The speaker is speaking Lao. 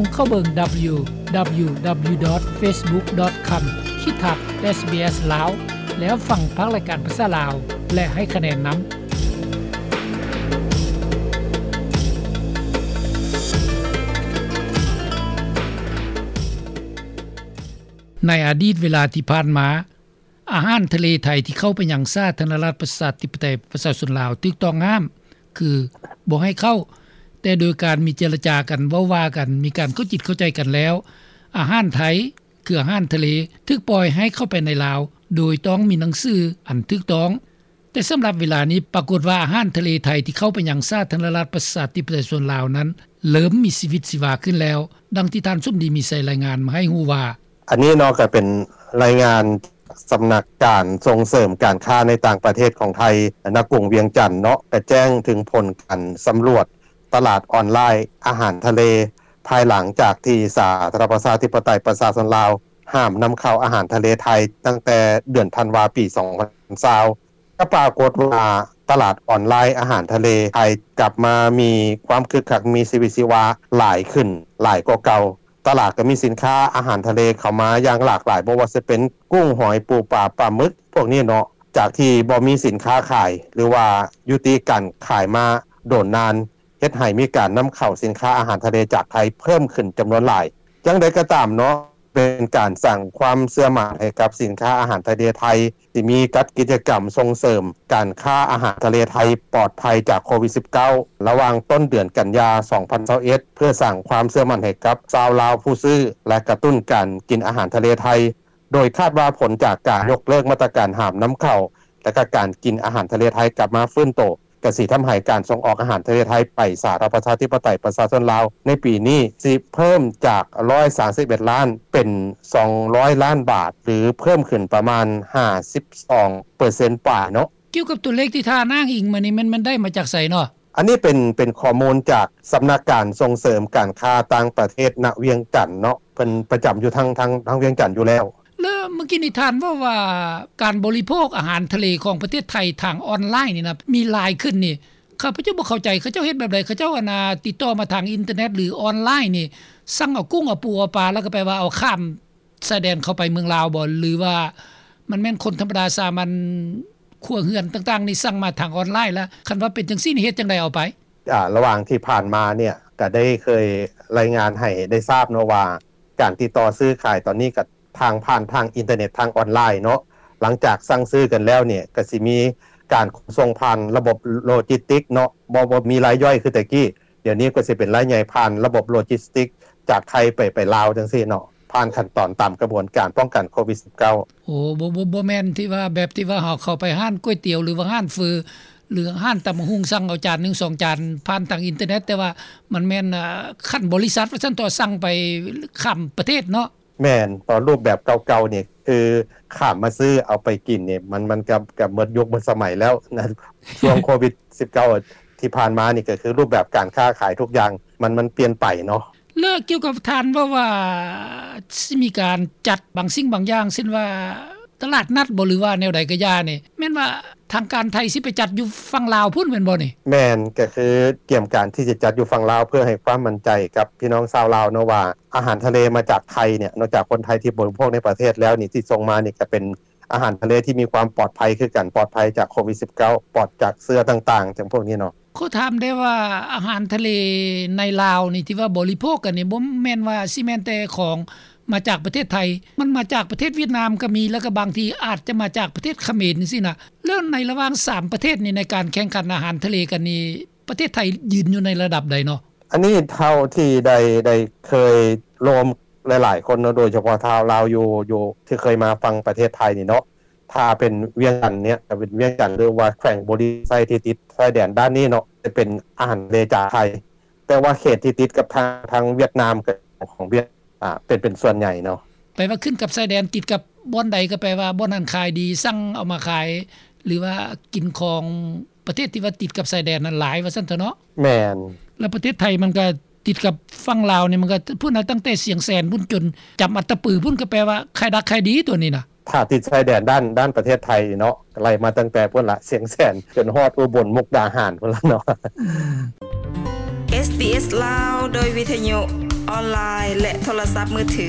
ສົ່ງເຂົ້າເບິ່ງ www.facebook.com/sbslao ແລ້ວຟັງພາກລາຍການພາສາລາວ ແລະ ໃຫ້ຄະແນນນຳ. ໃນອະດີດເວລາທີ່ຜ່ານມາ, ອາຫານທະເລໄທທີ່ເຂົ້າໄປຍັງສາທາລະນະລັດ ປະຊາທິປະໄຕ ປະຊາຊົນລາວ ຖືກຕ້ອງຫ້າມ ຄືບໍ່ໃຫ້ເຂົ້າ, ແຕ່ໂດຍການມີເຈລະຈາກັນ, ເວົ້າວ່າກັນ, ມີການເຂົ້າຈິດເຂົ້າໃຈກັນແລ້ວ, ອາຫານໄທ ຄືອາຫານທະເລ ຖືກປ່ອຍໃຫ້ເຂົ້າໄປໃນລາວ ໂດຍຕ້ອງມີໜັງສືອັນຖືກຕ້ອງ. ແຕ່ສຳລັບເວລານີ້ ປາກົດວ່າອາຫານທະເລໄທທີ່ເຂົ້າໄປຍັງສາທາລະນະລັດ ປະຊາທິປະໄຕ ປະຊາຊົນລາວນັ້ນ ເລີ່ມມີຊີວິດຊີວາຂຶ້ນແລ້ວ, ດັ່ງທີ່ທ່ານສົມດີ ມີໄຊ ລາຍງານມາໃຫ້ຮູ້ວ່າ: ອັນນີ້ເນາະ ກໍເປັນລາຍງານສຳນັກການສົ່ງເສີມການຄ້າໃນຕ່າງປະເທດຂອງໄທ ນະກຸງວຽງຈັນເນາະ ກໍແຈ້ງເຖິງຜົນການສຳຫຼວດຕະຫຼາດອອນລາຍອາຫານທະເລ ພາຍຫຼັງຈາກທີ່ສາທາລະນະລັດ ປະຊາທິປະໄຕ ປະຊາຊົນລາວ ຫ້າມນຳເຂົ້າອາຫານທະເລໄທ ຕັ້ງແຕ່ເດືອນທັນວາ ປີສອງພັນຊາວ ກໍປາກົດວ່າຕະຫຼາດອອນລາຍອາຫານທະເລໄທກັບມາມີຄວາມຄຶກຄັກ ມີຊີວິດຊີວາຫຼາຍຂຶ້ນ ຫຼາຍກວ່າເກົ່າ. ຕະຫຼາດກໍມີສິນຄ້າອາຫານທະເລເຂົ້າມາຢ່າງຫຼາກຫຼາຍ, ບໍ່ວ່າຈະເປັນກຸ້ງ, ຫອຍ, ປູປາ, ປາໝຶກ ພວກນີ້ເນາະ, ຈາກທີ່ບໍ່ມີສິນຄ້າຂາຍ ຫຼືວ່າຍຸຕິການຂາຍມາດົນນານ, ເຮັດໃຫ້ມີການນຳເຂົ້າສິນຄ້າອາຫານທະເລຈາກໄທເພີ່ມຂຶ້ນຈຳນວນຫຼາຍ. ຢ່າງໃດກໍຕາມເນາະ, ເປັນການສ້າງຄວາມເຊື່ອໝັ້ນໃຫ້ກັບສິນຄ້າອາຫານທະເລໄທ ທີ່ມີຈັດກິດຈະກຳສົ່ງເສີມການຄ້າອາຫານທະເລໄທປອດໄພຈາກໂຄວິດສິບເກົ້າ ລະຫວ່າງຕົ້ນເດືອນກັນຍາ ສອງພັນຊາວເອັດ ເພື່ອສ້າງຄວາມເຊື່ອໝັ້ນໃຫ້ກັບຊາວລາວຜູ້ຊື້ ແລະ ກະຕຸ້ນການກິນອາຫານທະເລໄທ, ໂດຍຄາດວ່າຜົນຈາກການຍົກເລີກມາດຕະການຫ້າມນຳເຂົ້າ ແລະ ກະການກິນອາຫານທະເລໄທກັບມາຟື້ນໂຕ ກະຊິທຳໃຫ້ການສົ່ງອອກອາຫານທະເລໄທໄປສາທາລະນະລັດ ປະຊາທິປະໄຕ ປະຊາຊົນລາວ ໃນປີນີ້ຊິເພີ່ມຈາກ ຮ້ອຍສາມສິບເອັດລ້ານ ເປັນ ສອງຮ້ອຍລ້ານບາດ ຫຼື ເພີ່ມຂຶ້ນປະມານ ຫ້າສິບສອງເປີເຊັນປາຍເນາະ. ກ່ຽວກັບຕົວເລກທີ່ທ່ານອ້າງອີງມານີ້ ແມ່ນ ແມ່ນໄດ້ມາຈາກໃສເນາະ? ອັນນີ້ເປັນ ເປັນຂໍ້ມູນຈາກສຳນັກການສົ່ງເສີມການຄ້າຕ່າງປະເທດ ນະວຽງຈັນເນາະ, ເພິ່ນປະຈຳຢູ່ທາງ ທາງ ທາງວຽງຈັນຢູ່ແລ້ວ. ແລ້ວເມື່ອກີ້ນີ້ທ່ານເວົ້າວ່າ ການບໍລິໂພກອາຫານທະເລຂອງປະເທດໄທທາງອອນລາຍນີ້ນະ ມີຫຼາຍຂຶ້ນນີ້ ຂ້າພະເຈົ້າບໍ່ເຂົ້າໃຈ ເຂົາເຈົ້າເຮັດແບບໃດ? ເຂົາເຈົ້າ ອັນນ່າ ຕິດຕໍ່ມາທາງອິນເຕີເນັດ ຫຼື ອອນລາຍນີ້ ສັ່ງເອົາກຸ້ງ ເອົາປູ ເອົາປາ ແລ້ວກໍແປວ່າເອົາຂ້າມຊາຍແດນເຂົ້າໄປເມືອງລາວບໍ ຫຼືວ່າມັນແມ່ນຄົນທຳມະດາສາມັນ ຄົວເຮືອນຕ່າງໆນີ້ ສັ່ງມາທາງອອນລາຍລະ? ຄັນວ່າເປັນຈັ່ງຊີ້ນີ້ ເຮັດຈັ່ງໃດເອົາໄປ? ອາ ລະຫວ່າງທີ່ຜ່ານມາເນຍ ກະໄດ້ເຄີຍລາຍງານໃຫ້ໄດ້ຊາບເນາະວ່າ ການຕິດຕໍ່ຊື້ຂາຍຕອນນີ້ກະທາງ ຜ່ານທາງອິນເຕີເນັດ ທາງອອນລາຍເນາະ, ຫຼັງຈາກສັ່ງຊື້ກັນແລ້ວເນຍ ກະຊິມີການຂົນສົ່ງຜ່ານລະບົບໂລຈິສຕິກເນາະ, ບໍ່ ບໍ່ມີລາຍຍ່ອຍຄືແຕ່ກີ້, ດຽວນີ້ກໍຊິເປັນລາຍໃຫຍ່ຜ່ານລະບົບໂລຈິສຕິກຈາກໄທໄປ ໄປລາວຈັ່ງຊີ້ເນາະ, ຜ່ານຂັ້ນຕອນຕາມກະບວນການປ້ອງກັນໂຄວິດສິບເກົ້າ. ໂອ້ ບໍ່ ບໍ່ ບໍ່ແມ່ນທີ່ວ່າ ແບບທີ່ວ່າເຮົາເຂົ້າໄປຮ້ານກ໋ວຍຕຽວ ຫຼືວ່າຮ້ານເຝີ ຫຼືຮ້ານຕຳບັກຫຸ່ງ ສັ່ງເອົາຈານໜຶ່ງສອງຈານຜ່ານທາງອິນເຕີເນັດ, ແຕ່ວ່າມັນແມ່ນ ເອີ ຂັ້ນບໍລິສັດວ່າຊັ້ນເຖາະ ສັ່ງໄປຂ້າມປະເທດເນາະ. ແມ່ນ, ຕອນຮູບແບບເກົ່າໆນີ້ ຄືຂ້າມມາຊື້ເອົາໄປກິນນີ້ ມັນ ມັນກໍ ກໍໝົດຍຸກໝົດສະໄໝແລ້ວນະ. ຊ່ວງໂຄວິດສິບເກົ້າທີ່ຜ່ານມານີ້ ກໍຄືຮູບແບບການຄ້າຂາຍທຸກຢ່າງ ມັນ ມັນປ່ຽນໄປເນາະ. ແລ້ວກ່ຽວກັບທ່ານເວົ້າວ່າ ຊິມີການຈັດບາງສິ່ງບາງຢ່າງ ເຊັ່ນວ່າຕະຫຼາດນັດບໍ ຫຼືວ່າແນວໃດກໍຢ່ານີ້ ແມ່ນວ່າທາງການໄທຊິໄປຈັດຢູ່ຝັ່ງລາວພຸ້ນແມ່ນບໍ່ນີ້? ແມ່ນ, ກໍຄືກຽມການທີ່ຈະຈັດຢູ່ຝັ່ງລາວ ເພື່ອໃຫ້ຄວາມໝັ້ນໃຈກັບພີ່ນ້ອງຊາວລາວເນາະວ່າ ອາຫານທະເລມາຈາກໄທເນຍ ນອກຈາກຄົນໄທທີ່ບໍລິໂພກໃນປະເທດແລ້ວນີ້ ທີ່ສົ່ງມານີ້ກໍເປັນອາຫານທະເລທີ່ມີຄວາມປອດໄພຄືກັນ, ປອດໄພຈາກໂຄວິດສິບເກົ້າ, ປອດຈາກເຊື້ອຕ່າງໆ ຈັ່ງພວກນີ້ເນາະ. ຂໍຖາມໄດ້ວ່າ ອາຫານທະເລໃນລາວນີ້ ທີ່ວ່າບໍລິໂພກກັນນີ້ ບໍ່ແມ່ນວ່າຊິແມ່ນແຕ່ຂອງມາຈາກປະເທດໄທ, ມັນມາຈາກປະເທດຫວຽດນາມກໍມີ, ແລ້ວກໍບາງທີອາດຈະມາຈາກປະເທດຂະເໝນຈັ່ງຊີ້ນະ. ແລ້ວໃນລະຫວ່າງສາມປະເທດນີ້ ໃນການແຂ່ງຂັນອາຫານທະເລກັນນີ້ ປະເທດໄທຢືນຢູ່ໃນລະດັບໃດເນາະ? ອັນນີ້ເທົ່າທີ່ໄດ້ ໄດ້ເຄີຍໂລມຫຼາຍໆຄົນເນາະ, ໂດຍສະເພາະຊາວລາວຢູ່ ຢູ່ ທີ່ເຄີຍມາຝັ່ງປະເທດໄທນີ້ເນາະ, ຖ້າເປັນວຽງຈັນເນຍ ເປັນວຽງຈັນ ຫຼືວ່າແຂວງບໍລິຄຳໄຊທີ່ຕິດຊາຍແດນດ້ານນີ້ເນາະ ຈະເປັນອາຫານທະເລຈາກໄທ, ແຕ່ວ່າເຂດທີ່ຕິດກັບທາງ ທາງຫວຽດນາມ ກໍຂອງຫວຽດ ອາ ເປັນ ເປັນສ່ວນໃຫຍ່ເນາະ. ແປວ່າຂຶ້ນກັບຊາຍແດນ ຕິດກັບບ່ອນໃດກໍແປວ່າບ່ອນນັ້ນຂາຍດີ, ສັ່ງເອົາມາຂາຍ ຫຼືວ່າກິນຂອງປະເທດທີ່ວ່າຕິດກັບຊາຍແດນນັ້ນຫຼາຍວ່າຊັ້ນເຖາະເນາະ. ແມ່ນ. ແລ້ວປະເທດໄທມັນກໍຕິດກັບຝັ່ງລາວນີ້ ມັນກໍພຸ້ນນະ, ຕັ້ງແຕ່ຊຽງແສນພຸ້ນຈົນຈຳອັດຕະປືພຸ້ນ ກໍແປວ່າຂາຍດັກຂາຍດີຕົວນີ້ນະ. ຖ້າຕິດຊາຍແດນດ້ານ ດ້ານປະເທດໄທເນາະ ໄລ່ມາຕັ້ງແຕ່ພຸ້ນລະ ຊຽງແສນ ຈົນຮອດອຸບົນ ມຸກດາຫານພຸ້ນລະເນາະ. ເອສບີເອສລາວ ໂດຍວິທະຍຸ ອອນລາຍ ແລະ ໂທລະສັບມືຖື.